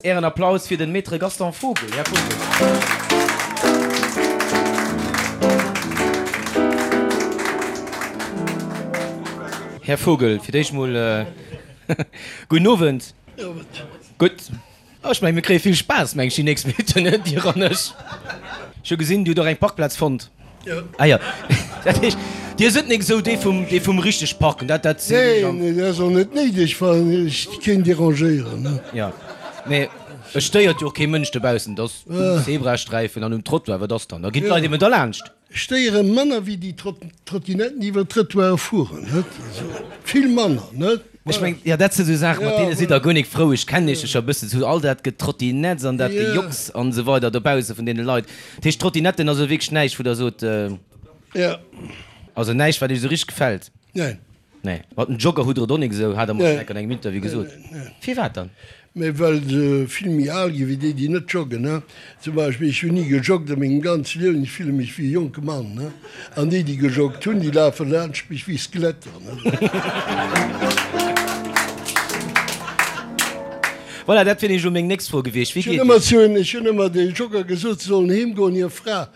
Ären Applaus fir den Maître Gaston Vogel. Här Vogel. Här Vogel, fir d'éischt mol gudden Owend. Gutt. Ech mengen, mir kréie vill Spaass, meng ech, déi nächst Minutten, Dir an ech. Ech hu gesinn, Dir hutt och eng Parkplaz fonnt. Ah jo, dat heescht, Dir sidd nik esou dee vum, dee vum richteg parken, dat, dat sinn ech an. Neen, dat ass och net néideg, well ech keen derangéieren, ne. Jo, mee et stéiert jo och kee Mënsch dobaussen, et ass um Zebrasträifen an um Trottoir, wat ass dann, da ginn d'Leit eben derlaanscht. Stéiere manner wéi déi Trottinetten, déi iwwer d'Trëttoire fueren, net? Also vill manner, net? Ech mengen, jo, dat si sou Saachen, mat deene sidd Der guer nik frou. Ech kennen Iech jo scho e bëssen, sou all dat Getrottinetts an dat Gejocks an esou weider dobausse vun deene Leit. Dat heescht, Trottinetten ass elo wierklech näischt, wou Der sot, also näischt, wat Iech esou richteg gefält? Neen. Nee. Mat den Jogger hutt Der et och nik esou, hat Der mer schonn enk an engem Interview gesot. Firwat dann? Mä well se vill méi al ginn, wéi déi, déi net joggen. Zum Beispill, ech hunn ni gejoggt a mengem ganze Liewen, ech fille mech wéi e jonke Mann. An déi, déi gejoggt hunn, déi lafe laanscht mech wéi Skeletter. Voilà, dat wier nämlech elo meng nächst Fro gewiescht. Wéi geet et? Ech hunn ëmmer de Jogger gesot, se sollen heem goen, hir Fra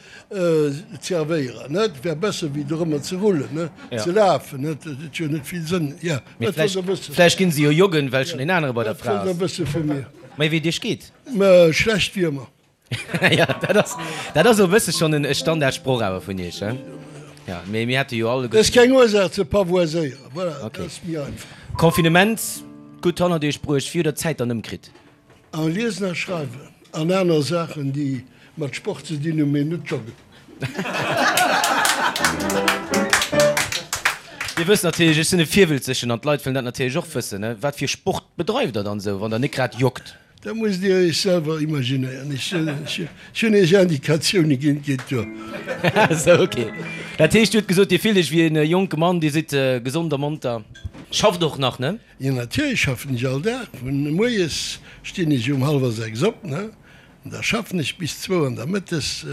zerwéieren, net? Et wär besser wéi dorëmmer ze rullen, ne? Ze lafen, net? Dat huet jo net vill Sënn. Ja, Mee wat wollt Der wëssen? Vläicht ginn se jo joggen, well schonn een anere bei der Wat Fra wollt Der ass. wësse vu mir? Mee wéi et Iech geet? Mä schlecht wéi ëmmer. Ja, dat ass, dat ass e bësse schonn en Standardsproch awer vun Iech, he? Ja, mee mir hätte jo alleguer. Dat ass keng Ursaach ze pavoiséieren, voilà, dat ass méi einfach. Confinement gutt hannert Iech bruecht. Wéi hutt Der d'Zäit dann ëmkritt? A liesen a schreiwen an aner Saachen, déi mat Sport ze dinn hunn, mee net joggen. Dir wësst natierlech, ech sinn e Virwëlzegen an d'Leit wëllen dat natierlech och wëssen, ne? Wat fir Sport bedreift der dann esou, wann der net grad joggt? Dat musst Dir Iech selwer imaginéieren. Ech hunn Iech Indikatioune ginn, et geet duer. Esou, ok. Dat heescht, Dir hutt gesot, Dir fillt Iech wéi e jonke Mann, Dir sidd gesond a monter, schafft och nach, ne? Jo natierlech schaffen ech all Dag. Vun moies stinn ech um hallwer 6 op, ne, an da schaffen ech bis zwou an da mëttes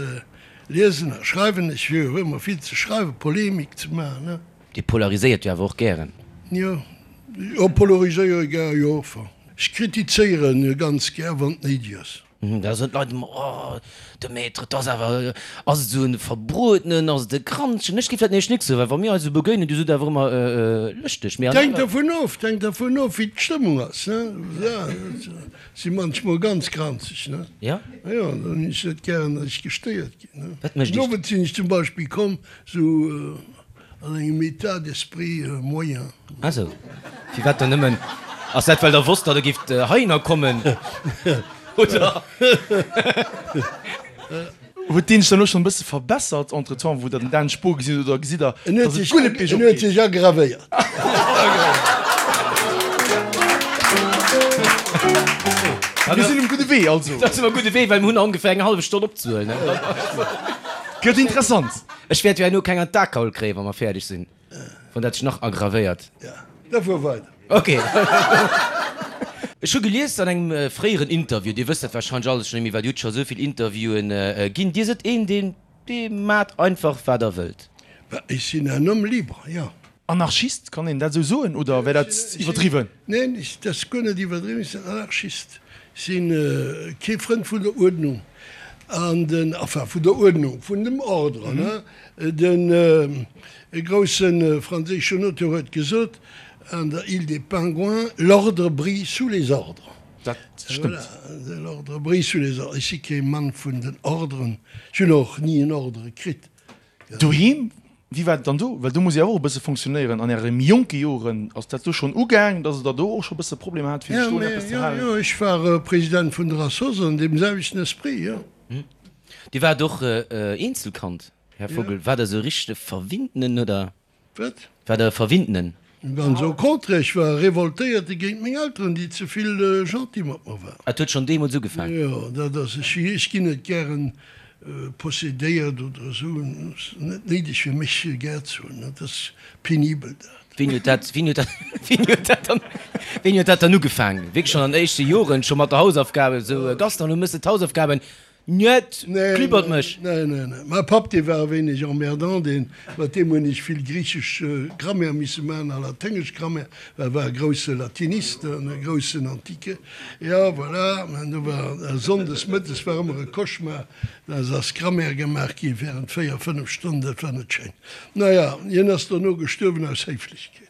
liesen a schreiwen ech. Hu jo ëmmer vill ze schreiwen, Polemik ze maachen, ne. Dir polariséiert jo awer och gären. Jo, jo polariséiere gär, jo, enfin ech kritizéieren ganz gär wann et néideg ass. Da soen d'Leit ëmmer, Oh, de Maître, 't ass awer, ass et esou en Verbruetenen, ass et e Granzchen? Ech géif dat nämlech nik soen, well wa mir eis esou begéinen, du sidd awer ëmmer lëschteg. Mee an Hänkt aner. dervun of, hänkt dervun of, wéi d'Stëmmung ass, ne? Ja, si manchmol ganz granzeg, ne? Ja? Jo, dann hunn ech net gären, datt ech gestéiert ginn, ne? Wat mécht Den Iech. Owend sinn ech zum Beispill komm, esou An engem État d'esprit moyen. Ah sou. Firwat dann nëmmen? Ass dat well der wosst, datt der gift heihinner kommen, oder? Huet deen sech dann elo schonn e bësse verbessert entretemps, wou der den Dan Spohr gesinn hutt, oder gesitt der, En huet datt et sech, guer net en huet sech aggravéiert. Mir sinn um gudde Wee also. Da si mer um gudde Wee, well mir hunn nach ongeféier eng hallef Stonn opzehuelen. Gëtt interessant. Ech wäert jo herno keng an d'Akaul kréien, wa mer fäerdeg sinn, wann dat sech nach aggravéiert. Ja, da fuer weider. Ok. Ech hu gelies an engem fréieren Interview, Dir wësst dat warscheinlech alles schonn méi, well Dir hutt scho esou vill Interviewen ginn, Dir sidd een, deen, dee maacht einfach, wat Der wëllt. Bah, ech sinn un homme libre, jo. Anarchist, kann een dat esou soen oder wär dat iwwerdriwwen? Neen, dat ass guer net iwwerdriwwen. Ech sinn Anarchist. Ech si kee Frënd vun der Uerdnung an den, enfin vun der Uerdnung, vun dem Ordre, ne. Den grousse franséischen Auteur huet gesot an der Île des Pingouins, L'ordre brille sous les ordres. Dat stëmmt. Voilà, l'ordre brille sous les ordres. Ech si kee Mann vun den Ordren. Ech hunn och ni en Ordre kritt. Doheem, wéi war et dann do? Well do muss ee awer och e bësse fonctionnéieren. An Äre méi jonke Joren, ass dat do schonn ugaang, datt Der do och scho e bësse Problemer hat, fir sech do un eppes ze halen? Jo, jo, ech war President vun der Assoss an deem selwechten Esprit, jo. Dir waart och Eenzelkand, Här Vogel. War Der esou e richtege Verwinntenen, oder? Wat? War der e Verwinntenen? Ganz au contraire, ech war e Revoltéierte géint meng Elteren, déi ze vill gentil mat mer waren. Et huet schonn deemools ugefaang? Jo, dat ass, ech, ech ginn net gären possedéiert oder esou, et ass net néideg fir mech gär ze hunn, dat ass penibel dat. Wéini huet dat, wéini huet dat, wéini huet dat dann, wéini huet dat dann ugefaang? Wierklech schonn an den éischte Joren, scho mat der Hausaufgaben, esou, Gaston, du méchs d'Hausaufgaben? Njet, klibbert mech. Nee, nee, nee. Mäi Papp, dee war e wéineg emmerdant, deen, mat deem hunn ech vill griichesch Grammaire misse maachen a laténgesch Grammaire, well e war e grousse Latinist an e groussen Antique. Jo, voilà, an do war sonndes mëttes war ëmmer e Cauchemar, da ass Grammaire gemaach gi während 4, 5 Stonnen, dat war net schéin. Naja, hien ass dono gestuerwen aus Héiflechkeet.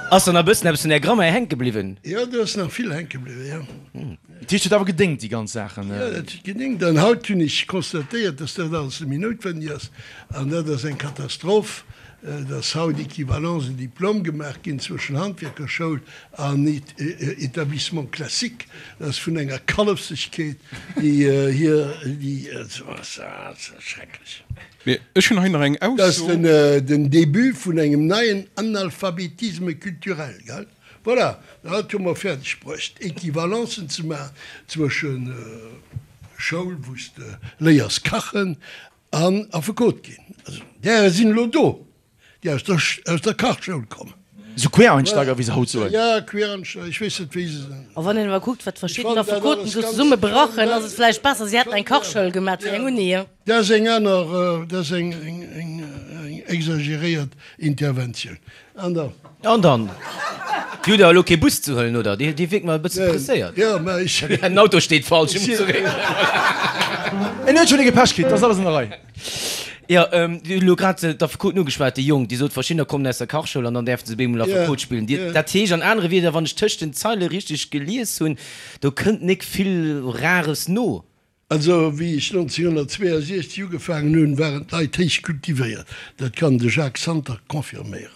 Ass dann nach e bëssen eppes vun där Grammaire hänke bliwwen? Jo, do ass nach vill hänke bliwwen, jo. Dat heescht, huet awer gedéngt, déi ganz Saachen? Jo, dat huet gedéngt. An haut hunn ech constatéiert, dass dat alles net méi noutwenneg ass. An dat ass eng Katastroph, dass haut Equivalence de diplôme gemaach ginn zwëschen Handwierkerschoul an Établissement classique. Dat ass vun enger Kallefsegkeet, déi hier, déi, ass schrecklech. Mee ech hunn hei nach eng Dat ass Ausso. den Début vun engem neien Analphabétisme culturel, gell? Voilà, dat hu mer fäerdeg bruecht, Equivalencen ze maachen zwësche Schoul, wou s de léiers kachen, an Affekot ginn. Also, därer sinn elo do, déi aus der, aus der Kachschoul kommen. Esou Quereinsteiger, wéi se haut soen. Ja, Quereinsteiger, ech weess net, wéi se se. A wann een awer kuckt, wat verschidden Affekoten do zesumme brachen, ass et vläicht besser, si hätten eng Kachschoul gemaat wéi eng Uni. Dat ass eng aner, dat ass eng, eng, eng exageréiert Interventioun. An dann. An dann. Dir hutt awer elo kee Bus ze huelen, oder? Dir wierkt mer e bësse presséiert. Jo, mä ech. Den Auto steet falsch, ech muss zeréck. En huet schonn ee Gepäsch kritt, dat ass alles an der Rei. Jo, Dir hutt elo grad d'Affekoten ugeschwat, déi Jonk, déi sot, verschiddener kommen aus der Kachschoul an dann däerfe se bemol Affekot spillen. Dir, dat heescht an anere Wierder, wann ech tëscht den Zeile richteg gelies hunn, do kënnt nik vill Rares no. Also, wéi ech 1962 ugefaangen hunn, waren d'Leit héich kultivéiert. Dat kann de Jacques Santer confirméieren.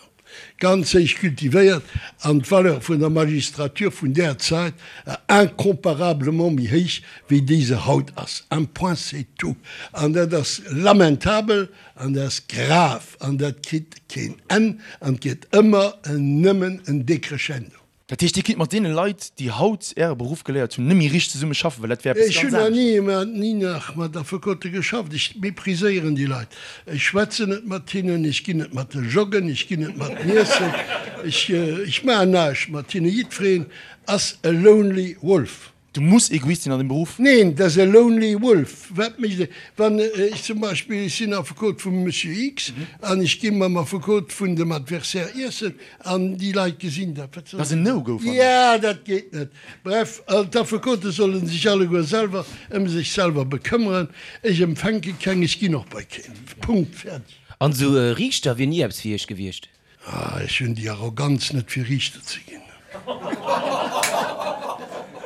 Ganz héich kultivéiert an d'Valeur vun der Magistrature vun där Zäit war incomparablement méi héich, wéi déi se haut ass. Un point c'est tout. An dat ass lamentabel an dat ass grav an dat kritt keen Enn an et gëtt ëmmer nëmmen en Decrescendo. Dat heescht, Dir kinnt mat deene Leit, déi haut Äre Beruff geléiert hunn, net méi richteg zesumme schaffen, well dat wär eppes Ech hunn ganz nach anescht. ni, ni nach mat Affekote geschafft. Ech mépriséieren déi Leit. Ech schwätzen net mat hinnen, ech ginn net mat joggen, ech ginn net mat iessen, ech, ech maachen näischt mat hinnen. Jiddwereen ass e lonely wolf. Du muss Egoist sinn an deem Beruff. Neen, dat ass e lonely wolf. Wat mécht e, wann ech zum Beispill, ech sinn Affekot vum Monsieur X an ech gi mam Affekot vun dem Adversaire iessen an déi Leit gesinn dat, wat Dat ass en No-Go, fannen ech. Ja, dat geet net. Bref, d'Affekote solle sech alleguer selwer ëm sech selwer bekëmmeren. Ech empfänke keng, ech ginn och bei keen. Punkt, fäerdeg. An esou e Riichter wier ni eppes fir Iech gewiescht? Ah, ech hunn déi Arroganz net fir Riichter ze ginn.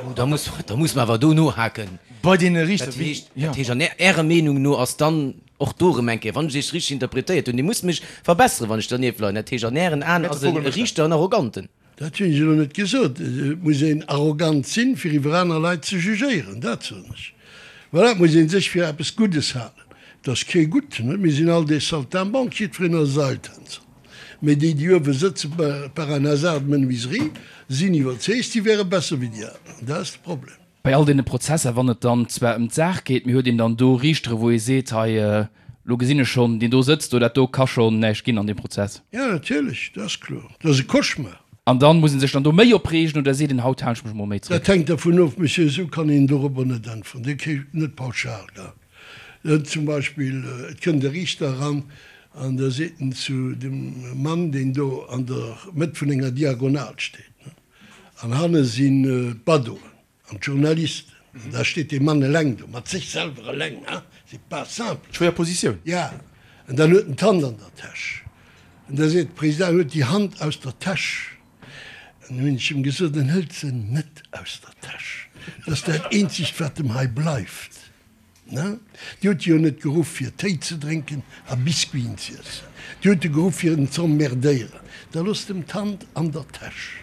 Oh, da muss, da muss mer awer do nohaken. Bei deene Riichter, Dat wéi, heescht, jo. dat heescht an Ärer Meenung no ass dann och do erëm eng Kéier, wann ech Iech richteg interpretéiert hunn, Dir musst mech verbesseren, wann ech dernieft leien, dat heescht an Ären Aen ass e Riichter en Arroganten. Dat hunn ech elo net gesot. Et muss een arrogant sinn, fir iwwer aner Leit ze jugéieren, dat soen ech. Voilà, et muss ee sech fir eppes Guddes halen. Et ass kee Gutten, net? Mir sinn all des Saltimbanques, jiddwereen ass Seiltänzer. Mee déi, déi uewe sëtzen, par un hasard de menuiserie, sinn iwwerzeegt, si wäre besser wéi déi aner. An dat ass de Problem. Bei all deene Prozesser, wann et dann zwar ëm d'Saach geet, mee huet een dann do Riichtere wou ee seet, hei elo gesinn ech schonn, deen do sëtzt do, dat do ka schonn näischt ginn an deem Prozess? Jo, natierlech, dat ass kloer. Dat ass e Cauchemar. An dann muss ee sech dann do méi opreegen oder seet een, haut halen ech mech emol méi zréck? Dat hänkt dervun of, Monsieur, esou kann een dorobber net äntweren. Dir kritt net pauschal, gell. Zum Beispill, et kënnt e Riichter eran an da seet en zu dem Mann, deen do an der Mëtt vun enger Diagonal steet, An hanne sinn d'Badoen an d'Journalisten. An da steet dee Mann eleng do, mat sech selwer eleng, hein, c'est pas simple. Schwéier Positioun. Ja, an dann huet en d'Hand an der Täsch. An da seet de President, Huet déi Hand aus der Täsch. An hunn ech em gesot, En hëlt se net aus der Täsch. Dat ass dat eenzegt, wat em hei bleift. Ne? Dir hutt e jo net geruff fir Téi ze drénken a Biscuiten z'iessen. Dir hutt e geruff fir en z'emmerdéieren. Da loosst em d'Hand an der Täsch.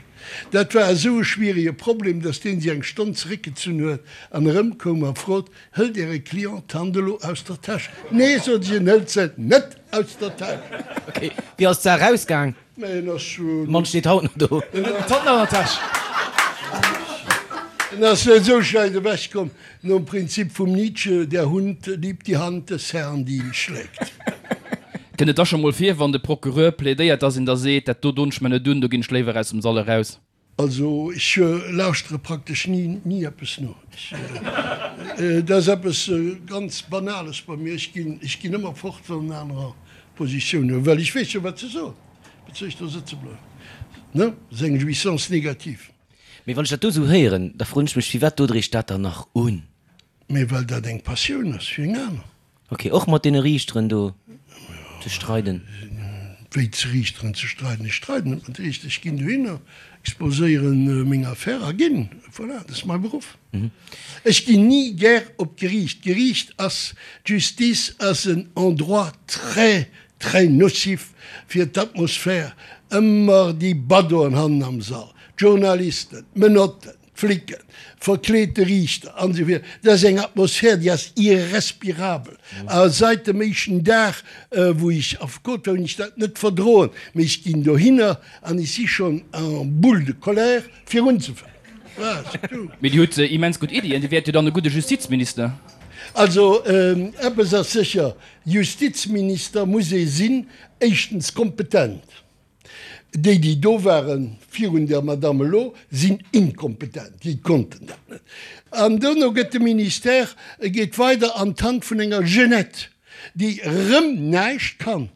Dat war esou e schwierige Problem, datt deen sech eng Stonn zeréckgezunn huet an erëmkoum a frot, Hëlt Äre Client d'Hand elo aus der Täsch? Nee, sot ech, en hëlt se net aus der Täsch. Ok, wéi ass d'Saach ausgaang? Mä en ass schon. De Mann steet haut nach do. D'Hand nach an der Täsch. En ass net esou schlecht ewech komm, nom Prinzip vum Nietzsche, Der Hund liebt die Hand des Herrn, die ihn schlägt. Kënnt et da scho mol vir, wann de Procureur plädéiert, dass een da seet, dat do don ech mer net un, do ginn ech léiwer aus dem Sall eraus? Also ech lauschtere praktesch ni, ni eppes no. Ech, dat ass eppes ganz Banales bei mir. Ech ginn, ech ginn ëmmer fort, wann anerer Positioun hunn, well ech weess jo, wat se soen. Wat soll ech do sëtze bleiwen? Ne? Dat ass eng Jouissance négative. Mee wann ech dat do esou héieren, da froen ech mech, firwat dot Der Iech dat dann nach un? Mee well dat eng Passioun ass wéi eng aner. Ok, och mat deene Riichteren do ze streiden? Wéi ze Riichteren ze streiden? Ech streiden net mat Riichter. Ech ginn dohinner, exposéieren meng Affär a ginn. Voilà, dat ass mäi Beruff. Ech ginn ni gär op d'Geriicht. D'Geriicht ass, d'Justice ass en Endroit très, très nocif fir d'Atmosphär. Ëmmer déi Baddoen hannen am Sall, d'Journalisten, d'Menotten. Flicken, verkleete Riichter an esou virun. Dat ass eng Atmosphär, déi ass irrespirabel. A seit dem éischten Dag, wou ech Affekot war, hunn ech dat net verdroen. Mee ech ginn dohinner an ech si schonn en boule de colère, fir unzefänken. Voilà, c'est tout. Mee Dir hutt immens gutt Iddien. Dir wäert jo dann e gudde Justizminister. Also, eppes ass sécher, Justizminister muss ee sinn, éischtens kompetent, Déi, déi do waren virun der Madame elo, sinn inkompetent, déi konnten dat net. An dono gëtt de Ministère, e geet weider an d'Hand vun enger Jeunette, déi erëm näischt kann.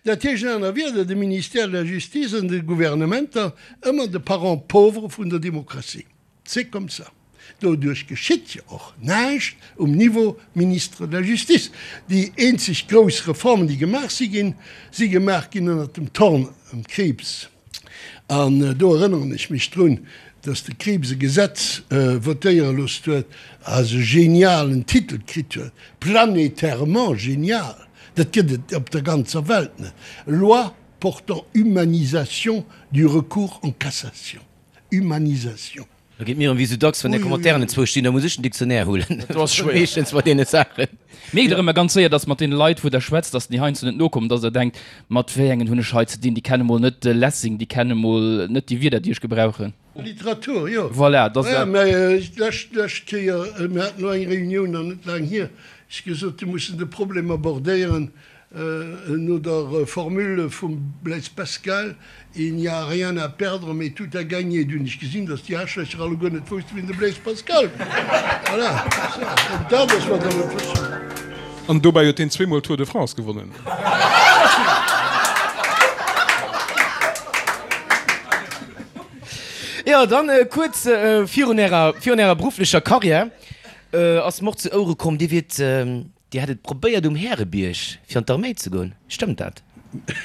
Dat heescht an aner Wierder, de Ministère de la Justice an de Gouvernementer ëmmer de Parent pauvre vun der Demokratie. C'est comme ça. Doduerch geschitt jo och näischt um Niveau Ministre de la Justice. Déi eenzeg grouss Reformen, déi gemaach si ginn, si gemaach ginn ënnert dem Thorn um Krieps. An do erënneren ech mech drun, dass de Krieps e Gesetz votéiere loosst huet, a se genialen Titel kritt huet, planétairement genial, dat gëtt et op der ganzer Welt net, Loi portant humanisation du recours en cassation. Humanisation. Da geet mir erëm wéi sou dacks, wann är Commentairen enzwousch stinn, da muss ech den Dictionnaire huelen. Dat ass schwéier. Meeschtens bei deene Saachen. Mierkt der ëmmer ganz séier, dass mat deene Leit, wou der schwätzt, dass déi heiansdo net nokommen, dass der denkt, mat wéi engen hunn ech hei ze dinn, déi kenne mol net de Lessing, déi kenne mol net déi Wierder, déi ech gebrauchen. Literatur, jo. Voilà, dass der. Mä d'lescht, d'lescht Kéier, mir haten elo eng Reunioun nach net laang hier, ech gesot, mir mussen de Problem abordéieren, No der Formule vum Blaise Pascal, Il n'y a rien à perdre, mais tout à gagner, du hunn ech gesinn, datt déi Aarschlächer alleguer net woussten, wien de Blaise Pascal war. Voilà, c'est ça. An dat ass, wat der net wëssen. An dobäi huet hien zweemol Tour de France gewonnen. Jo, dann kuerz virun ärer, virun ärer berufflecher Karriär ass mer och zu Ouere komm, Dir wiert Dir hätt et probéiert um Härebierg fir an d'Arméi ze goen, stëmmt dat?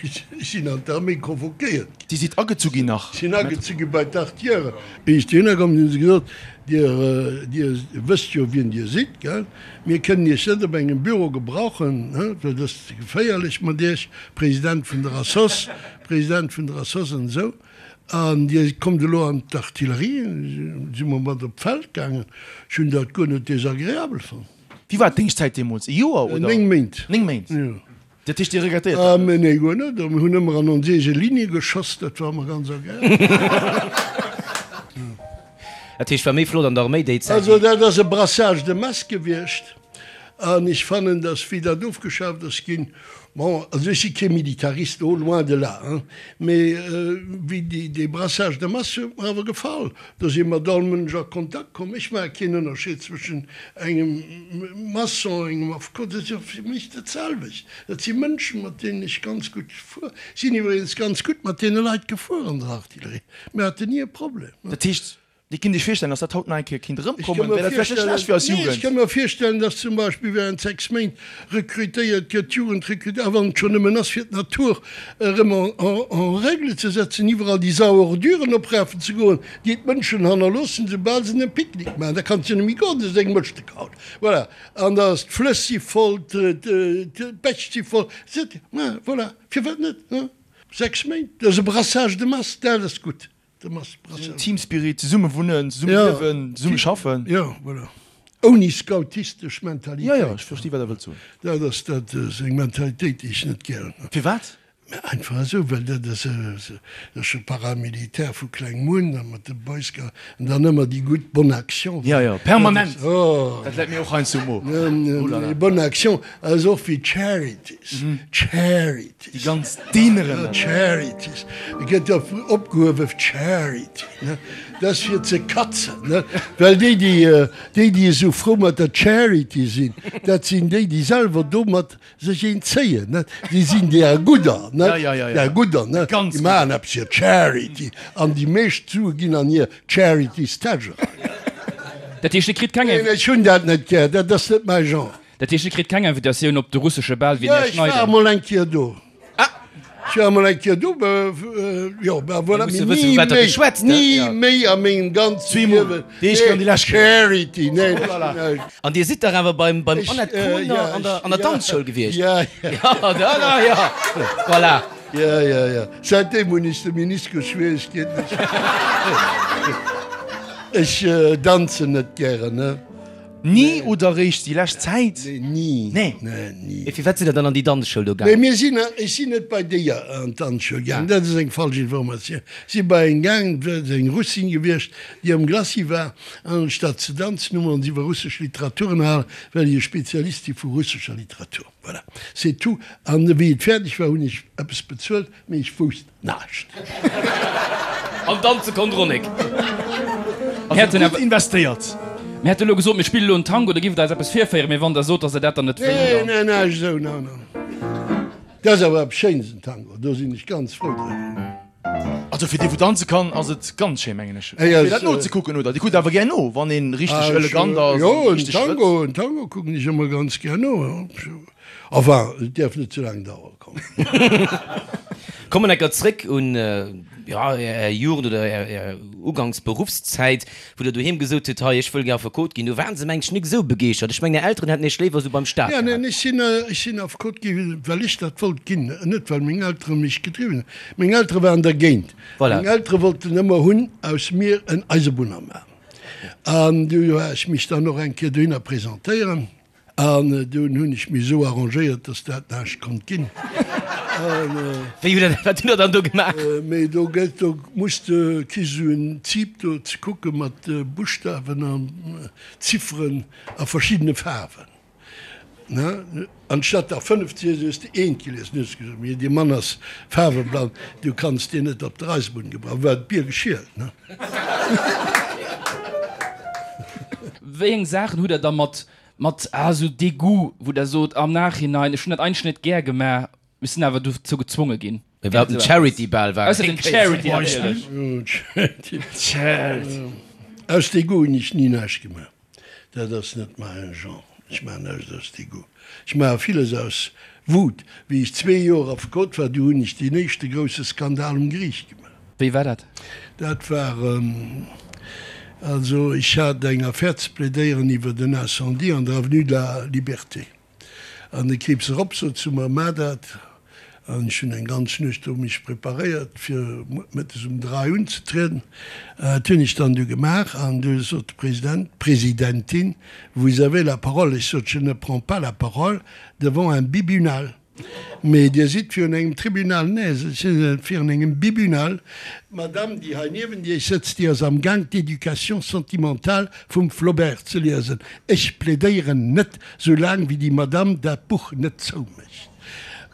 Ech sinn an d'Arméi convoquéiert ginn. Dir sidd agezu ginn nach? Ech sinn agezu gi bei d'Artillerie. Wéi ech dohinner komm sinn, hu se gesot, Dir, Dir wësst jo wien Dir sidd, gell? Mir kënnen Iech net op engem Büro gebrauchen, well dat ass ze geféierlech mat Iech, President vun der Assoss, President vun der Assoss an esou. An Dir kommt elo an d'Artillerie. Si mer mat op d'Feld gaangen. Ech hunn dat guer net désagréabel fonnt. Wéi war d'Déngschtzäit deemools? E Joer oder? 9 Méint. 9 Méint? Jo. Dat heescht, Dir regrettéiert dat net? Nee, guer net. Mir hunn ëmmer an ons eege Ligne geschoss, dat war ëmmer ganz agreabel. Dat heescht, war méi flott an der Arméi déi Zäit? Also dat ass e Brassage de masse gewiescht. An ech fannen, datt wéi dat ofgeschaaft ass ginn, bon, also ech si kee Militarist, oh loin de là, hein, mee wéi déi, dee Brassage de masse huet mer awer gefall. Do si mat all Mënsch a Kontakt komm. Ech maache keen Ënnerscheed zwëschen engem Maçon, engem Affekot, dat ass jo fir mech dat selwecht. Dat si Mënschen, mat deenen ech ganz gutt gefuer sinn. Iwwregens ganz gutt mat deene Leit gefuer an der Artillerie. Mir haten ni e Problem. Dat heescht, Dir kinnt Iech virstellen, datt dat haut nach eng Kéier kinnt erëmkommen? Wär dat vläicht net schlecht fir eis Jugend? Ech ka mer virstellen, datt zum Beispill während 6 Méint rekrutéiert gëtt, d'Jugend rekrutéiert, a wann et schonn nëmmen ass fir d'Natur erëm en règle ze setzen, iwwerall déi Sauorduren oprafen ze goen, déi d'Mënschen hannerloossen, soubal se en Picknick maachen. Da kanns de jo net méi goen, dat ass eng Mëschtekraut. Voilà. An da ass d'Flëss si voll, d'Bäch si voll. Voilà. Firwat net? 6 Méint, dat ass e Brassage de masse, dat ass gutt. Team Spirit, zesumme wunnen, zesumme liewen, zesumme schaffen. Jo, voilà. Ouni scoutistesch Mentalitéit. Jo, jo, ech versti wat Der wëllt soen. Dat ass, dat ass eng Mentalitéit, déi ech net gären hunn. Firwat? Mä einfach esou, well dat ass dat ass scho paramilitaire vu klengem un, da mat de Boy Scouts an dann ëmmer déi gutt Bonne Action. Jo, jo, permanent. Dat läit mir och heiansdo um Mo. Oh la la. Bonne Action ass och wéi Charities, Charities. Déi ganz Dineren. Jo, Charities. Et gëtt jo opgehuewe Charity, ne? Dat ass fir ze katzen, ne? Well déi, déi, déi, déi esou frou mat der Charity sinn, dat sinn déi, déi selwer domat Sech een zéien, net? Déi sinn deer Gudder, net? Ja, ja, ja, ja. Deer Gudder, net? Ganz Déi maachen eppes fir d'Charity an déi meescht Sue ginn an hir Charity's-Täsch eran. Dat heescht, Dir kritt keng. Neen, ech hunn dat net gär, dat ass net mäi Genre. Dat heescht, Dir kritt keng Invitatioun op de russesche Bal wéi den Jo, Här ech war Schneider? emol eng Kéier do. Ech war emol eng Kéier do, jo, ben voilà, mee ni méi, ni méi a mengem ganze Liewen. Charity, nee, nee. An Dir sidd dach awer beim Annette Kohner an der Danzschoul gewiescht? Ja, ja. Ja, ja, voilà. Ja, ja, ja. Säitdeem hunn ech de Meniskus-Schwieregkeeten. Ech danzen net gären, ne. Ni oder réischt déi lescht Zäit? Nee, ni. Nee. Nee, ni. Mee firwat sidd der dann an déi Danzschoul do Nee, gaangen? mir sinn, ech sinn net bei déi an d'Danzschoul gaangen, dat ass eng falsch Informatioun. Ech si bei eng gaangen, dat ass eng Russin gewiescht, déi am Glacis war, an anstatt ze danzen, hu mer ons iwwer russesch Literatur ënnerhalen, well ech e Spezialist si vu russescher Literatur. Voilà, c'est tout. An wéi et fäerdeg war, hunn ech eppes bezuelt, mee ech wousst Naascht. An danze konnt Ronek. Mir hätten Gutt investéiert. Mir hätte lo gesot, mir spille lo en Tango, da giff et eis eppes virféieren, mee wann der sot, dass der dat dann net wëllt, Nee, dann. nee, näischt esou, no, no. Dat ass awer eppes Schéines, en Tango, do sinn ech ganz frou driwwer. Also fir dee wou danze kann, ass et ganz schéin, mengen ech. Ey, Fir dat nozekucken, oder? Dir kuckt awer gär no, wann een richteg elegant ass Jo, an en richteg Schrëtt. Tango, en Tango kucken ech ëmmer ganz gär no, jo. Enfin, et däerf net ze laang dauere, komm. Kommen enker zréck un, jo, Är Jugend oder Är ugangs Beruffszäit, wou Der doheem gesot hutt, hei, ech wëll gär Affekot ginn. Do waren se, mengen ech, nik esou begeeschtert. Ech mengen, Är Elteren hätten Iech léiwer esou beim Staat Ja, neen, gehat. ech sinn, ech sinn Affekot gi well ech dat wollt ginn, net well meng Eltere mech gedriwwen hunn. Meng Eltere waren dergéint. Voilà. Meng Eltere wollten ëmmer hunn aus mir en Eisebunner maachen. An du war ech mech dann och eng Kéier dohinner presentéieren. An dunn hunn ech mech esou arrangéiert, dass dat näischt konnt ginn. Wéi hutt Der, wat hutt Der dann do gemaach? Mee do gëtt, do muss de, kriss esou en Typ do ze kucke mat Buschtawen an Zifferen a verschiddene Faarwen, ne? Anstatt der 5 ze liesen, hues de eent gelies. Dann hues de gesot, Mee dee Mann ass faarweblann, du kanns deen net op der Eisebunn gebrauchen. War d'Bier geschielt, ne? Wéi eng Saachen hutt Der da mat Mat ah esou Degout, wou der sot am Nachhinein, ech hunn dat eigentlech net gär gemaach, mee sinn awer dozou gezwonge ginn. Mee wat den Charity Bal war. Ausser den Charity natierlech. Charity. Aus Degout hunn ech ni näischt gemaach. Dat ass net mäin Genre. Ech maachen näischt aus Degout. Ech maache villes aus Wut. Wéi ech zwee Joer Affekot war, du hunn ech deen éischte grousse Skandal um Geriicht gemaach. Wéi war dat? Dat war, also ech hat eng Affär ze plädéieren iwwert en Incendie an der Avenue de la Liberté. An de Krieps erop sot zu mer, Maach dat. An ech hunn eng ganz Nuecht do mech preparéiert, fir mëttes um 3 unzetrieden. Dat hunn ech dann du gemaach. An du sot de President, d'Presidentin, Vous avez la parole. Ech sot, Je ne prends pas la parole devant un bibunal. Mee Dir sidd virun engem Tribunal. Nee, ech sinn net virun engem Bibunal. D'Madame, déi hei niewent Iech sëtzt, déi ass amgaang d'Éducation sentimentale vum Flaubert ze liesen. Ech plädéieren net, soulaang wéi déi Madame dat Buch net zoumécht.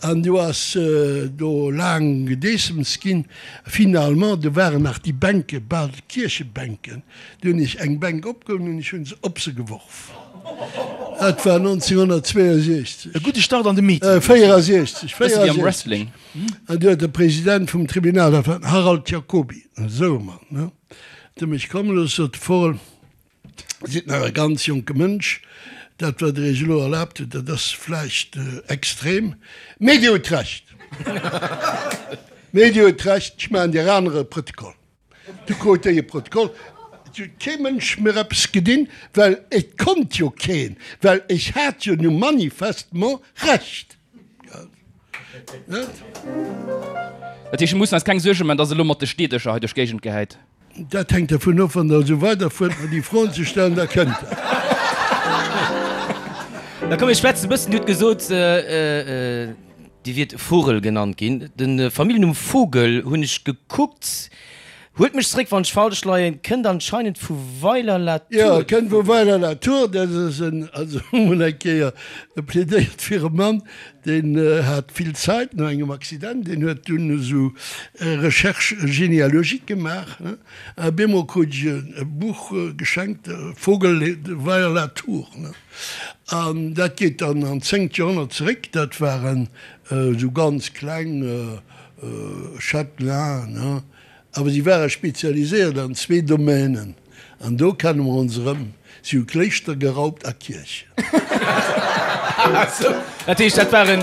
An du ass do laang gedeessems ginn. Finalement, do waren nach déi Bänke, bal Kierchebänken, Du hunn ech eng Bänk opgeholl an ech hunn se op se geworf. Dat war 1962. E gudde Start an de Meeting. 64, Bësse wéi am 64. Wrestling. An du huet de President vum Tribunal, dat war den Harald Jacoby, esou e Mann, ne, huet e mech komme looss, sot de Vogel, Dir sidd nach e ganz jonke Mënsch, dat wat Der Iech elo erlaabt hutt, dat ass vläicht extrem, mee Dir hutt Recht. Mee Dir hutt Recht, ech maachen Dir anere Protokoll. Du krut déi e Protokoll. Et huet kee Mënsch mir eppes gedinn, well et konnt jo keen, well ech hat jo nu manifestement Recht. Net? Dat heescht, mir mussen eis keng Suerge man, dass e lo mat de Steedecher hei duerch d'Géigend gehäit? Dat hänkt dervun of, wann Der esou weiderfuert, mer déi Froen ze stellen, da kënnt dat. Da komm mir schwätzen e bëssen. Dir hutt gesot. Dir wiert Vogel genannt ginn. De Familljennumm Vogel, hunn ech gekuckt, huelt mech zeréck wann ech falsch leien, kënnt anscheinend vu Weiler-la-Tour. Jo, kënnt vu Weiler-la-Tour. Dat ass en, also emol eng Kéier plädéiert fir e Mann, deen hat vill Zait no engem Accident, deen huet dunn esou Recherche généalogique gemaach, ne, a bemol krut ech e Buch geschenkt, Vogel de Weiler-la-Tour, ne. An dat geet dann an d'zéngt Joerhonnert zeréck. Dat waren esou ganz kleng Châtelainen, ne? Awer si ware spezialiséiert an zwee Domänen. An do kenne mer ons erëm, Si hu Kléischter geraubt a Kierchen. Dat heescht, dat waren,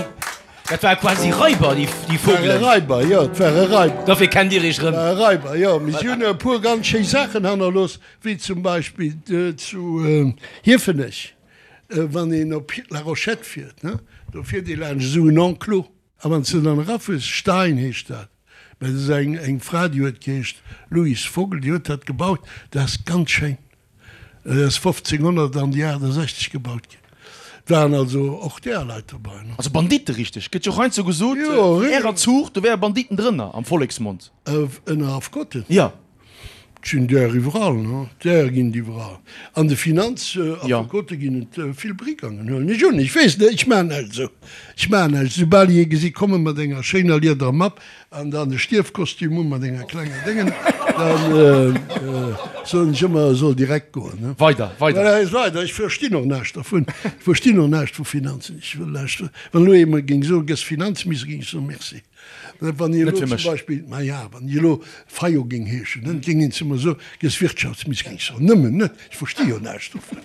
dat ware quasi Raiber, déi, déi Vogelen? Ware Raiber, jo, et ware Raiber. Dofir kennt Dir Iech erëm. Ware Raiber, jo. Mee si hunn e puer ganz schéi Saachen hannerlooss. Wéi zum Beispill zu Hiefenech, wann een op La Rochette fiert, do fiert ee laanscht esou en Enclos. A wann s de dann erafuers, Stein heescht dat, mä dat ass eng Fra, déi huet geheescht Louise Vogel, déi huet dat gebaut. Dat ass ganz schéin. Dat ass 1568 gebaut ginn. Et waren also och där Leit dobei. Also Banditte richteg? Gëtt jo och heiansdo gesot, vun ärer Zuucht, do wäre Banditten drënner am Volleksmond. Ënner Affekoten? Jo. Et sinn där iwwerall, ne? Där ginn et iwwerall. An de Finanzaffekote ginn et vill Brigangen, huelen ech un. Ech weess net, ech maachen näischt esou. Ech maachen näischt. Soubal ech ee gesi komme mat enger schéiner liederer Mapp an dann e Stierfkostüm u mat enger klenger Déngen, da soen ech ëmmer, e soll direkt goen, ne? Weider, weider. Voilà, weider. Ech verstinn och näischt dervun. Ech verstinn och näischt vu Finanzen. Ech wëll näischt. Wann elo ee mer géing soen, gëss Finanzminister, géing ech soen, Merci. Wann hie elo zum Beispill, ma ja, wann hie elo Fayot géing heeschen, dann géing een zu mer soen, gëss Wirtschaftsminister, géing ech soen, nëmmen net, ech versti jo näischt dovun.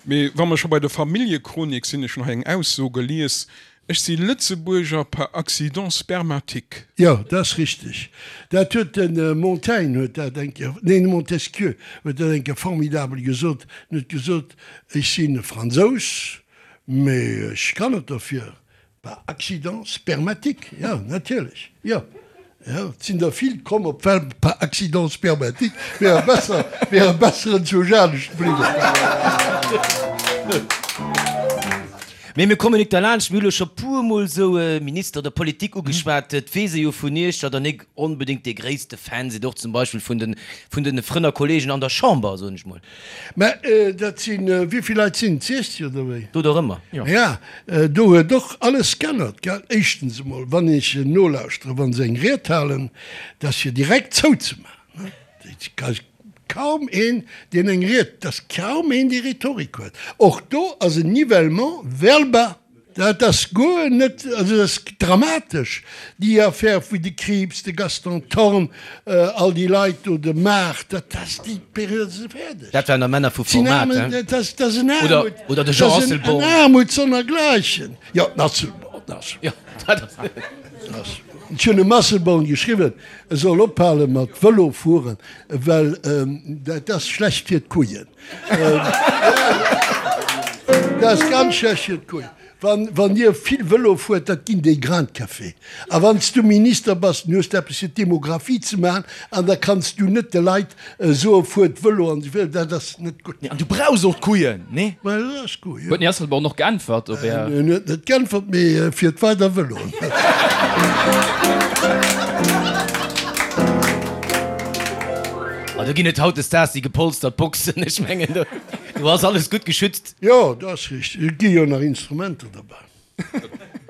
Mee wa mer scho bei der Familljechronik sinn, ech hunn hei eng Ausso gelies, Ech si Lëtzebuerger par accident spermatique. Jo, dat ass richteg. Dat huet de Montaigne huet dat eng Kéier, neen, de Montesquieu huet dat eng Kéier formidabel gesot. En huet gesot, Ech sinn e Fransous, mee ech kann net derfir, par accident spermatique. Jo, natierlech, jo. Jo, et sinn der vill komm op d'Welt par accident spermatique, wiere besser, wiere besser enzwousch anescht bliwwen. Mee mir kommen nik derlaanscht, mir hu lo scho puermol sou Minister oder Politik ugeschwat. Et weess ee jo vun Iech, datt Der nik onbedéngt dee gréisste Fan sidd, och zum Beispill vun de, vun de Frënn a Kollegen an der Chamber, soen ech mol. Mä dat sinn, wéi vill Leit sinn et, 60 oder wéi? Do der ëmmer. Ja, do huet och alles g'ännert, gell. Éischtens emol, wann ech nolauschteren, wa se eng Ried halen, dat ass fir direkt zouzemaachen, ne. Et ass kaum een, deen eng Ried, et ass kaum een, dee Rhetorik huet. Och do ass en Nivellement vers le bas. Dat ass guer net, also dat ass dramatesch, déi Affär wou de Krieps, de Gaston Thorn, all déi Leit do, de Maart, dat ass, déi Period ass fäerdeg. Dat waren der Männer vu Format, hein? Dat ass, dat ass en Aarmut, Oder de Jean dat ass en Asselborn. Aarmut sonnergleichen. Jo, den Asselborn, den Asselborn. Jo, dat ass. Ech hunn dem Asselborn geschriwwen, e soll ophale mat Vëlo fueren, well dat ass schlecht fir d'Kujen. Dat ass ganz schlecht fir d'Kuel. Wann Dir vill Vëlo fuert, dat ginn déi Grains de café. A wann s du Minister bass, dann hues de eppes fir d'Demographie ze maachen an da kanns du net de Leit soen, fuert Vëlo an esou weider. Dat ass net gutt. An du brauchs och d'Kujen, nee? Mä dat ass gutt, jo. Huet den Här Asselborn och geäntwert op Är. En huet net geäntwert, mee fiert weider Vëlo. A do ginn et hautdesdaags déi gepolstert Boxen. Ech mengen, do do ass alles gutt geschützt. Jo, dat ass richteg. Et gi jo nach Instrumenter derbäi.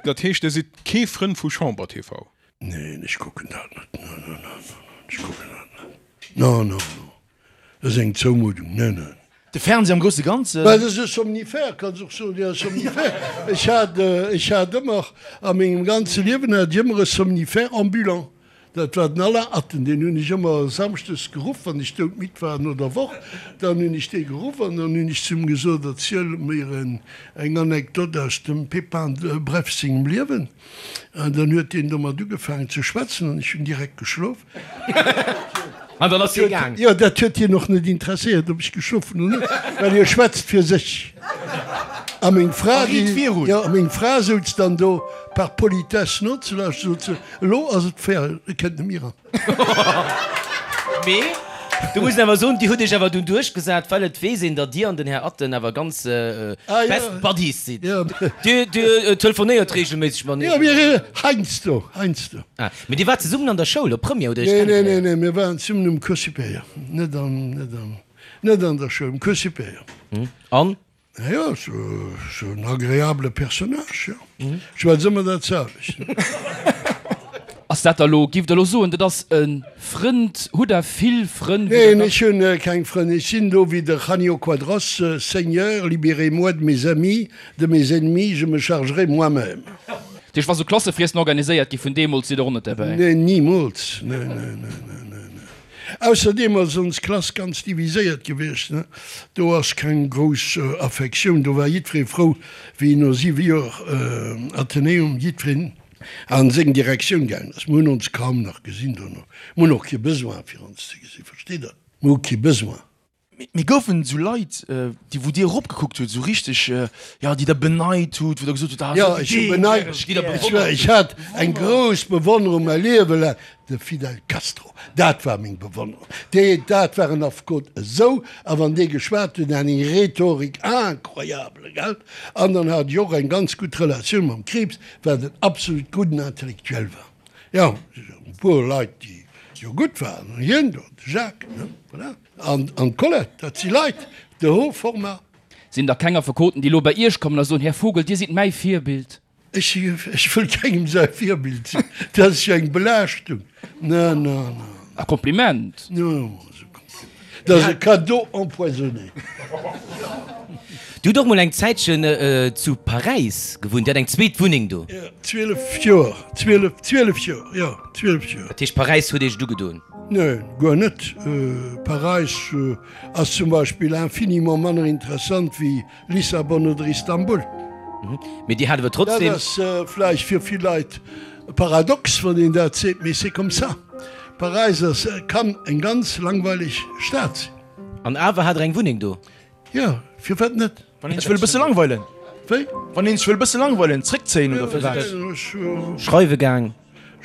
Dat heescht, Dir sidd kee Frënd vu Chamber TV? Neen, ech kucken dat net. Non, non, non, non, ech kucken dat net. Non, non, non. Dat ass eng Zoumuddung. Neen, neen. De Fernseh am grousse Ganzen? Mä dat ass e Somnifère, kanns och soen, jo, e Somnifère. Ech hat, ech hat ëmmer, a mengem ganze Liewen hat ech ëmmer e Somnifère ambulant. Dat war den Alain Atten, deen hunn ech ëmmer samschdes geruff, wann ech doudmidd war no der Woch. Dann hunn ech dee geruff an dann hunn ech zu him gesot, Erziel mir eng Anekdot aus dem Pépin de Bref sengem Liewen. An dann huet deen domat ugefaangen ze schwätzen an ech hunn direkt geschlof. An dann ass hie gaang. Jo, dat huet hien och net interesséiert, ob ech geschlof hunn oder net, well hie schwätzt fir sech. A meng Fra, déi, jo, a meng Fra souz dann do par politesse nozelauschteren, sot se, Elo ass et fair, e kënnt net méi eran. Mee. Do muss een awer soen, Dir hutt Iech awer dunn duerchgesat, well et weess een, datt Dir an den Här Atten awer ganz best buddies sidd. Dir telefonéiert reegelméisseg mateneen? Jo, mir heiansdo, heiansdo. Ah, mee Dir waart zesummen an der Schoul, op Première hutt Dir Iech Nee, nee, kennengeléiert? nee, mir waren zesummen um Cours supérieur, net an, net an, net an der Schoul, um Cours supérieur. An? Jo, sou en agreabele Personnage, jo. Schwätz ëmmer dat selwecht. Ass dat da lo, giff der lo soen, dat ass e Frënd? Hutt der vill Frënn? Neen, ech hunn keng Frënn. Ech sinn do wéi de Janio Quadros, Seigneur, libérez-moi de mes amis, de mes ennemis, je me chargerai moi-même. Dat heescht, wa sou Klassefriessen organiséiert gi vun deemools, sidd der och net derbäi? Neen, nimools. Neen, neen, neen, neen, neen. Ausserdeem ass ons Klass ganz diviséiert gewiescht, ne? Do ass keng grouss Affektioun, do war jiddweree frou, wéi no siwe Joer Athenäum jiddwereen a seng Direktioun gaangen ass. Mir hunn ons kaum nach gesinn dono. Mir hunn och kee Besoin, fir ons ze gesinn, versteet Der? Mir hu kee Besoin. Mee goufen esou Leit, déi wou Dir eropgekuckt hutt, esou richteg, jo, déi Der beneit hutt, wou Der gesot hutt, ah, Jo, ech hu beneit, ech war, ech hat eng grouss Bewonnerung mäi Liewe laang, de Fidel Castro, dat war meng Bewonnerung. Dee, dat war en Affekot esou, a wann dee geschwat huet, en hat eng Rhetorik incroyable, gell? An dann hat ech och eng ganz gutt Relatioun mam Krieps, wat en absolut gudden Intellectuel war. Jo, e puer Leit, déi jo gutt waren, hien do, de Jacques, ne, voilà. An d'Colette, dat si Leit de haut format. Sinn da keng Affekoten, déi elo bei Iech kommen a soen, Här Vogel, Dir sidd mäi Virbild? Ech, ech wëll kengem säi Virbild sinn. Dat ass jo eng Belaaschtung. Na, na, na. E Kompliment. Jo, ass e Kompliment. Dat ass e Cadeau empoisonné. Dir hutt och mol eng Zäitchen zu Paräis gewunnt. Dir hat eng zweet Wunneng do. Jo, 12 Joer, 12, 12 Joer, jo, 12 Joer. Dat heescht, Paräis huet Iech et ugedoen? Neen, guer net. Paräis ass zum Beispill infiniment manner interessant wéi Lissabon oder Istanbul. Mee Dir hat awer trotzdem. Dat ass vläicht fir vill Leit paradox, wann een dat seet, mee c'est comme ça. Paräis ass, kann eng ganz langweileg Stad sinn. An awer hat Der eng Wunneng do? Jo, firwat net? Wann een sech wëll e bësse langweilen. Wéi? Wann een sech wëll e bësse langweilen, zréckzéien oder firwat? Schreiwe gaang.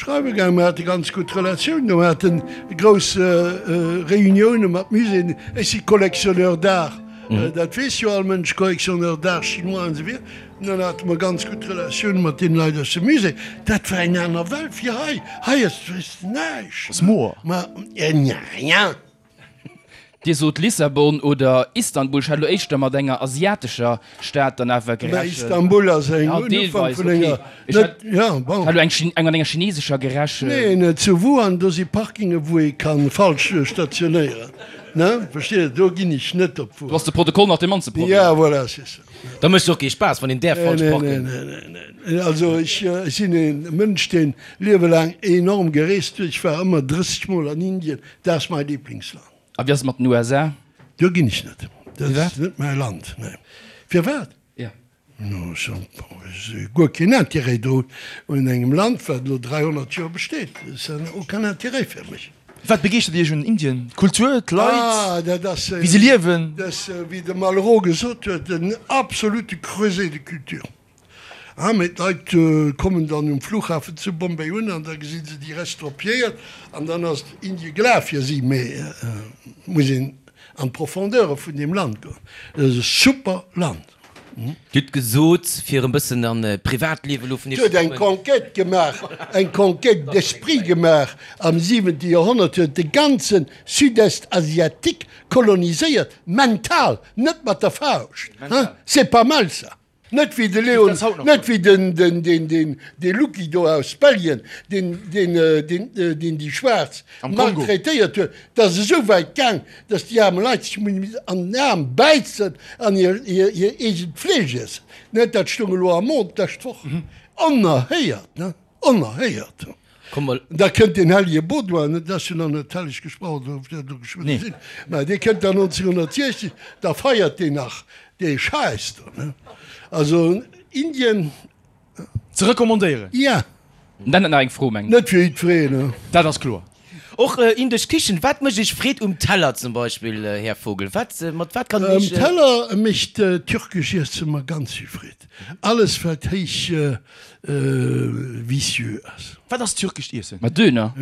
Schreiwe gaang. Mir hate ganz gutt Relatiounen. Mir haten grouss Reunioune mat Muséeën. Ech si Collectionneur d'art, dat weess jo all Mënsch, Collectionneur d'art chinois an esou wieder. An dann hate mer ganz gutt Relatioune mat deene Leit aus dem Musée. Dat war eng aner Welt wéi hei. Hei ass näischt. Ass moer. Ma, rien. Dir sot Lissabon oder Istanbul, ech hat elo éischter mat enger asiatescher Stad dann awer Mä gerechent. Istanbul ass eng Ja, un Ufank deelweis, vun okay. enger, Ech net, hat ja, bon. elo eng eng mat enger chinesescher gerechent. Neen, zu Wuhan, do si Parkinge wou ee ka falsch stationéieren, ne, versteet Der, do ginn ech net op Do ass Wuhan. de Protokoll nach dee mannste Problem. Ja, voilà, c'est ça. Da mécht et och kee Spaass, wann een däerf Nee, falsch nee, nee, parken. nee, nee, nee. Also ech sinn e Mënsch, deen liewelaang enorm gereest huet. Ech war ëmmer 30 Mol an Indien, Dat ass mei Lieblingsland. A wéi ass et mat den USA? Do ginn ech net. Dat ass net mäi Land. Nee. Firwat? Ja. No, ech hu guer keen Intérêt do un engem Land, wat elo 300 Joer besteet. Ça n'a aucun intérêt fir mech. Wat begeeschtert Iech un Indien? D'Kultur, d'Leit, Ah, dat ass, wéi se liewen? dat ass, wéi de Malraux gesot huet, en absolute creuset de culture. Ah, mee d'Leit kommen dann um Flughafen zu Bombay un an da gesi se déi Restropiéiert an dann ass Indie gelaf fir si. Mee et muss een an d'Profondeure vun deem Land goen. Et ass e super Land. Dir hutt gesot, fir e bëssen an d'Privatliewe elo vun Et Iech huet ze eng kommen. Conquête gemaach, eng Conquête d'esprit gemaach am siwente Joerhonnert, huet de ganze Sud-Est asiatique koloniséiert, mental, net mat der Fauscht. Hein, c'est pas mal ça! Net wéi de Leon, net wéi den, den, den, den, dee Lucky do aus Belgien, deen, deen, deen, deen déi Schwaarz maltraitéiert huet. Dat ass esou wäit gaang, datt déi aarme Leit sech hunn missen an den Aarm bäissen an hir, hir, hir eegent Fleesch iessen. Net, dat stoung elo am Monde d'lescht Woch. Onerhéiert, ne? Onerhéiert! Komm mol. Da kënnt deen hellege Baudouin, dat ass jo nach net helleg gesprach, oder ob dat elo geschwënn Nee. sinn, mä dee kënnt dann 1960, da feiert deen nach dee Schäiss do, ne? Also Indien. Ze recommandéieren. Ja. Dann nach eng Fro, mengen. Net fir jiddwereen, ne? Dat ass kloer. Och indesch Kichen. Wat mécht Iech Freed um Teller zum Beispill, Här Vogel? Wat, mat wat kann een Um Iech. Teller mécht türkesch Iesse mer ganz vill Freed. Alles wat héich vicieux ass. Wat ass türkescht Iessen? Ma Döner.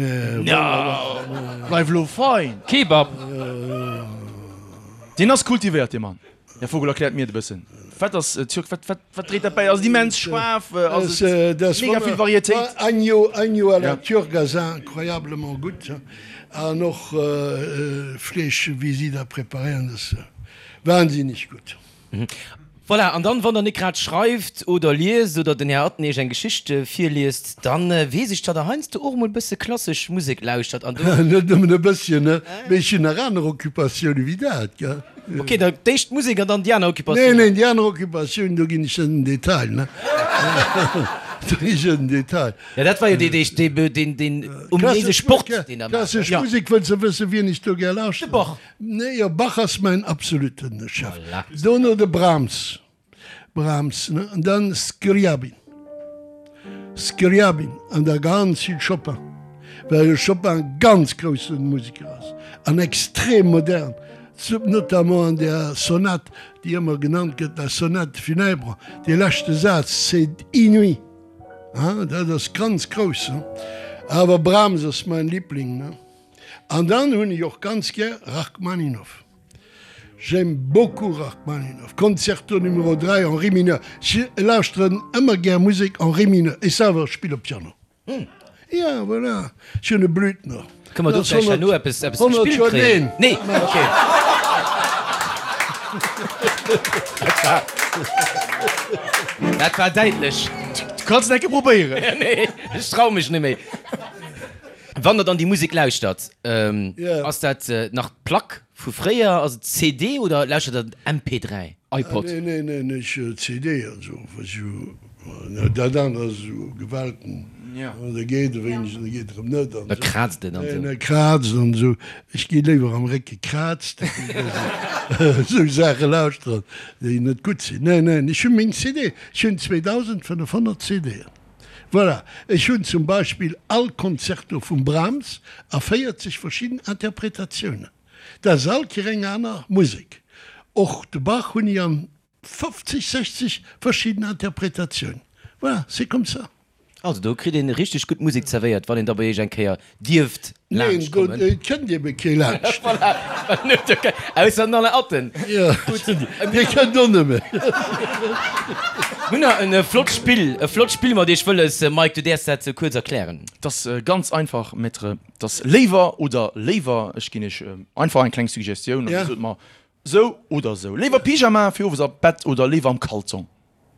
Bleif elo fein! Kebab. Deen ass kultivéiert, dee Mann. Här Vogel, erkläert mir et e bëssen. Wat ass Türk? Wat, wat, wat dréit dat bäi? Ass et immens schaarf? Ass et mega vill Varietéit? Agneau, Agneau à la turque ass incroyablement gutt. An och Fleesch, wéi si dat preparéieren, dat ass wahnsinneg gutt. Voilà, an dann, wann der net grad schreift oder liest oder den Här Atten iech eng Geschicht virliest, dann weess ech, datt der heiansdo och emol e bësse klassesch Musek lauschtert an do. Net nëmmen e bësschen, ne, mee ech hunn nach aner Occupatioune wéi dat, gell. Ok, da d'éischt d'Musek an dann déi aner Occupatioun. Nee, nee, déi aner Occupatioun, do ginn ech net en Detail, ne. Do ginn ech net en Detail. Ja, dat war jo dee, dee, deen, deen ominéise Sport, deen der maacht. Klassesch Musek, wëlls de wëssen, wien ech do gär lauschteren? De Bach. Nee, jo, Bach ass mäin absoluten Chef. Dono de Brahms, Brahms, ne, an dann Scriabin, Scriabin an da ganz vill Chopin, well de Chopin e ganz grousse Museker ass an extrem modern, notamment an där Sonat, déi ëmmer genannt gëtt, la Sonate funèbre, dee leschte Saz, c'est inouï, hein, dat ass ganz grouss, ne. Awer Brahms ass mäin Liebling, ne. An dann hunn ech och ganz gär Rachmaninoff. J'aime beaucoup Rachmaninoff. Concerto numéro 3 en ré mineur. Ech lauschteren ëmmer gär Musek en ré mineur. Ech selwer spille Piano. Ja, voilà. Ech hunn e Blüthner. Kënne mer do vläicht herno eppes gespillt kréien? Nee, ok. Dat war däitlech. Du kanns et eng Kéier probéieren. Nee, ech trau mech net méi. Wann der dann déi Musek lauschtert, ass dat nach d'Plack vu fréier, ass et CD oder lauschtert der MP3? iPod? Nee, nee, nee, nee, ech CD an esou, was jo, dat anert ass esou Gewalten, da geet e wéineg an da geet erëm net an Da kraazt et an esou. Da kraazt an esou. Ech gi léiwer am Réck gekraazt, wéi dass ech esou Saache lauschteren, déi net gutt sinn. Nee, nee, ech hu meng CD, ech hunn 2500 CDen. Voilà, ech hunn zum Beispill all Concerto vum Brahms a 40 verschidden Interpretatiounen. Dat ass all Kéier eng aner Musek. Och de Bach hunn ech an 50, 60 verschidden Interpretatiounen. Voilà, c'est comme ça. Also do kritt een richteg gutt Musek zerwéiert, wann een da bei iech eng Kéier dierft laanscht kommen. Neen, do kënnt ebe kee laanscht. Voilà, ausser den Alain Atten. Jo, dee kënnt och net méi. Mir hunn nach e flott Spill, e flott Spill mat iech wëlles. Mike, du däerfs dat kuerz erklären. 't ass ganz einfach, Maître, 't ass léiwer oder léiwer. Ech ginn iech einfach eng kleng Suggestioun an dir sot mer sou oder sou. Léiwer Pyjama fir owes a Bett oder léiwer am Kalzong?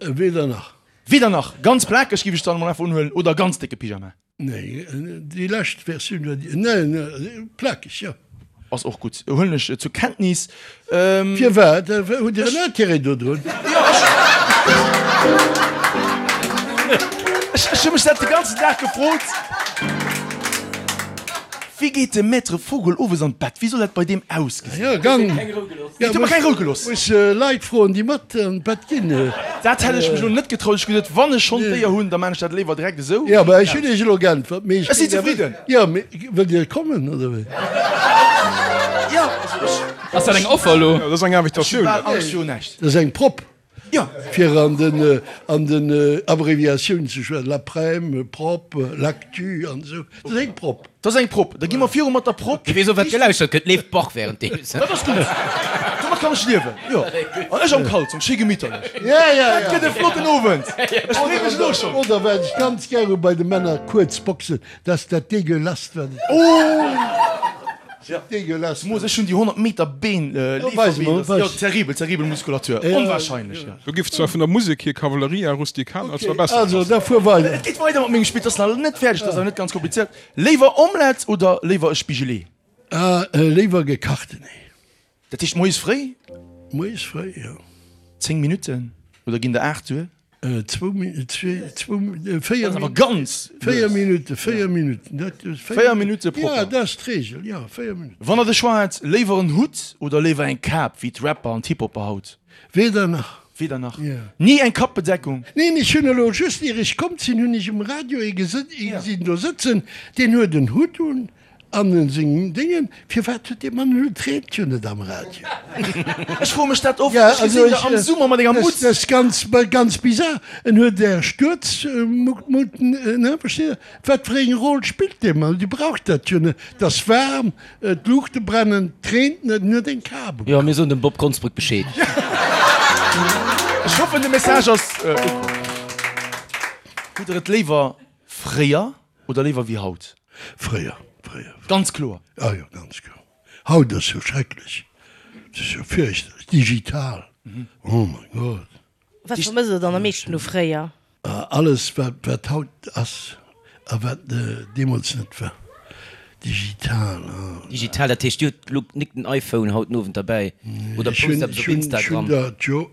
Weder nach. Weder nach. Ganz plakeg giff ech dann emol einfach unhuelen oder ganz décke Pyjama? Nee, déi lescht Versioun war déi, nee, nee, plakeg, jo. Ass och gutt, huelen ech zur Kenntnis. Firwat? Hutt Dir en Intérêt dodrun? Jo, ech. Ech hu mech dat de ganzen Dag gefrot. Wéi geet de Maître Vogel owes an d'Bett? Wéi soll dat bei deem ausgesinn? Jo, gang. Huet mer keng Rou gelooss. Muss Leit froen, déi mat an d'Bett ginn. Dat hätt ech mech elo net getraut. Ech hu gesot, wann ech schonn d'Éier hunn, da maan ech dat léiwer direkt esou. Jo, mä ech hunn Iech elo geäntwert. Mee ech sinn zefridden. Jo, mee wëllt Dir kommen, oder wéi? Jo, also ech. Ass dat eng Offer elo? Jo, dat ass eng Invitatioun. Ech hu bal Angscht virun näischt. Dat ass eng Prop. Jo. Fir an den, an den Abréviatiounen ze schwätzen, l'aprem, prop, l'actu an esou. Dat ass eng Prop. Dat ass eng Prop. Da gi mer viru mat der Prop. Wie weess och wat gelauschtert gëtt, leeft Bach währenddeems. Dat ass gutt. Domat kann ech liewen. Jo. An ech am Kalzong, schéi gemitterlech. Ja, ja, ja. Dat gëtt e flotten Owend. Ech freeë mech elo schonn. Oder wat ech ganz gär hu bei de Männer, kuerz Boxen, dat ass dat degueulast, wat et gëtt. Oh! Degueulasse. Moos, ech hunn déi 100 Meter Been, Leeferbeen, dat ass jo terribel, terribel Muskulatur, onwahrscheinlech, jo. Do giff zwar vun der Musek hier Cavalleria Rusticana zwar besser passen. Also, da fuer weider. Et geet weider mat mengem Spill, et ass nach net fäerdeg, et ass awer net ganz komplizéiert. Léiwer Omelette oder léiwer e Spigelee? Léiwer gekachten Ee. Dat heescht moies fréi? Moies fréi, jo. 10 Minutten oder ginn der 8 duer? Zwou Minutten, zwee, zwou, véier. Dat ass awer ganz lues. Véier Minutten, véier Minutten, dat ass. Véier Minutte propper. Ja, dat ass d'Reegel, jo, véier Minutten. Wann der de Choix hätt, léiwer en Hutt oder léiwer eng Kap wéi d'Rapper an d'Hip-Hopper haut? Weder nach. Weder nach. Jo. Ni eng Kappbedeckung? Neen, ech hunn elo just, ier ech komm sinn, hunn ech um Radio ee gesinn do sëtzen, deen huet en Hutt un. An en sengem Déngen, firwat huet dee Mann elo d'Reent jo net am Radio? Ech froe mech dat oft, ech gesinn der am Summer mat enger Mutz. Dat ass ganz, ganz bizar. En huet där Stuerzmuten, ne, versteet Der? Wat fir eng Roll spillt dee Mann? Dir braucht dat jo net. Et ass waarm, d'Luuchte brennen, et reent net, en huet eng Kap um Jo, mir soen dem Bob Konsbrück Bescheed. Ech hoffen de Message ass ukomm. Hutt der et léiwer fréier Oder léiwer wéi haut? Fréier, fréier. Ganz kloer. Ah jo, ganz kloer. Haut ass jo schrecklech. Et ass jo fierchterlech. Digital, oh mein Gott. Wat vermësst der dann am meeschten u fréier? Alles wat wat haut ass a wat deemools net war. Digital, ah. Digital, dat heescht, Dir hutt elo nik den iPhone haut den Owend derbäi oder post eppes op Instagram? Ech hunn dat jo,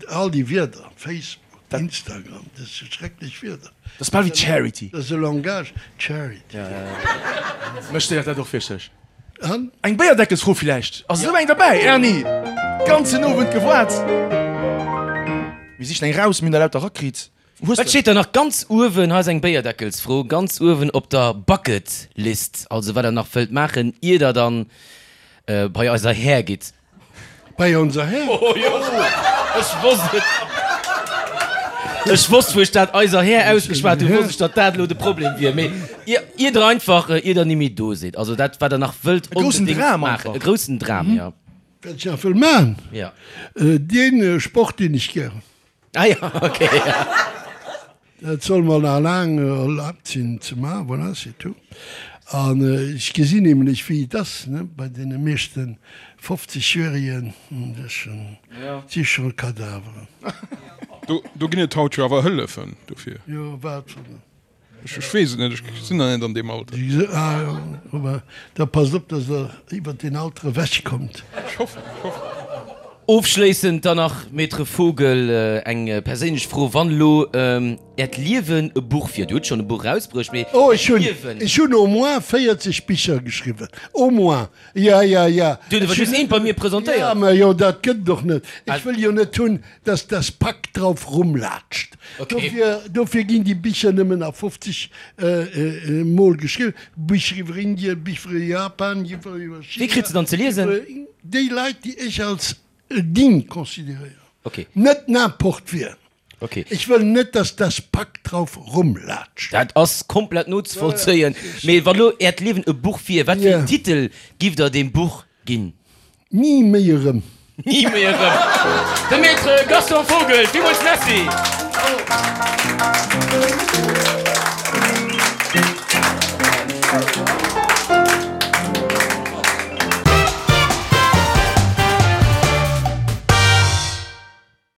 all déi Wierder, Facebook. Instagram, dat si schrecklech Wierder. Dat ass bal wéi Charity. Dat ass e Langage, Charity. Mech stéiert dat och wierklech. An? Eng Béierdeckelsfro villäicht? Ass esou eng derbäi, Erni? Ganzen Owend gewaart. Mir sichen eng raus, mir hunn der lauter rakritt. Hues Wat steet da nach ganz uewen? Hei ass eng Béierdeckelsfro, ganz uewen op der Bucket List. Also wat der nach wëllt maachen, ier der dann bei eiser Här gitt. Bei onser Här. Oh jo, ech wosst et. Ech wosst, wou ech dat eiser Här ausgeschwat hunn, wosst ech, datt dat elo de Problem wier. Mee ier der einfach, ier der nimmi do sidd, also dat, wat der nach wëllt onbedéngt maachen, e groussen Dram, jo. Wat ech nach wëll maachen? Jo. Dee Sport, deen ech gär hunn. Ah jo, okay. Dat soll mer nach laang erlaabt sinn ze maachen, voilà, c'est tout. An ech gesinn nämlech, wéi et ass, ne, bei deene meeschte 50 -Jährigen, dat si scho Kadaveren. Do ginn et haut jo awer Hëllefen dofir. Jo, wat fir. Ech weess et net, ech sinn nach net an deem Alter. Ah jo, ma da passt op, dass Der iwwert deen Alter ewech kommt. Ech hoffen, ech hoffen. Ofschléissend dann nach, Maître Vogel, eng perséinlech Fro, Wann elo Äert Liewen e Buch wier, Dir hutt schonn e Buch erausbruecht, mee Oh, ech hunn, Liewen. ech hunn au moins 40 Bicher geschriwwen, au moins, ja, ja, ja. Dir hutt awer just eent bei mir presentéiert. Ja, mä jo, dat gëtt et och net. Ech wëll jo net hunn, dass das Pack drauf rumlatscht. Dofir, dofir ginn déi Bicher nëmmen a 50 Mol geschriwwen. Bicher iwwer Indien, Bicher iwwer Japan, Bicher iwwer China. Wie kritt se dann ze liesen? Déi Leit, déi ech als digne consideréieren. Net n'importe wien. Ech wëll net, dass das Pack drauf rumlatscht. Dat ass komplett nozevollzéien. Mee wann elo Äert Liewen e Buch wier, wat fir en Titel giff Der deem Buch ginn? Ni méi erëm. Ni méi erëm. De Maître Gaston Vogel, villmools Merci.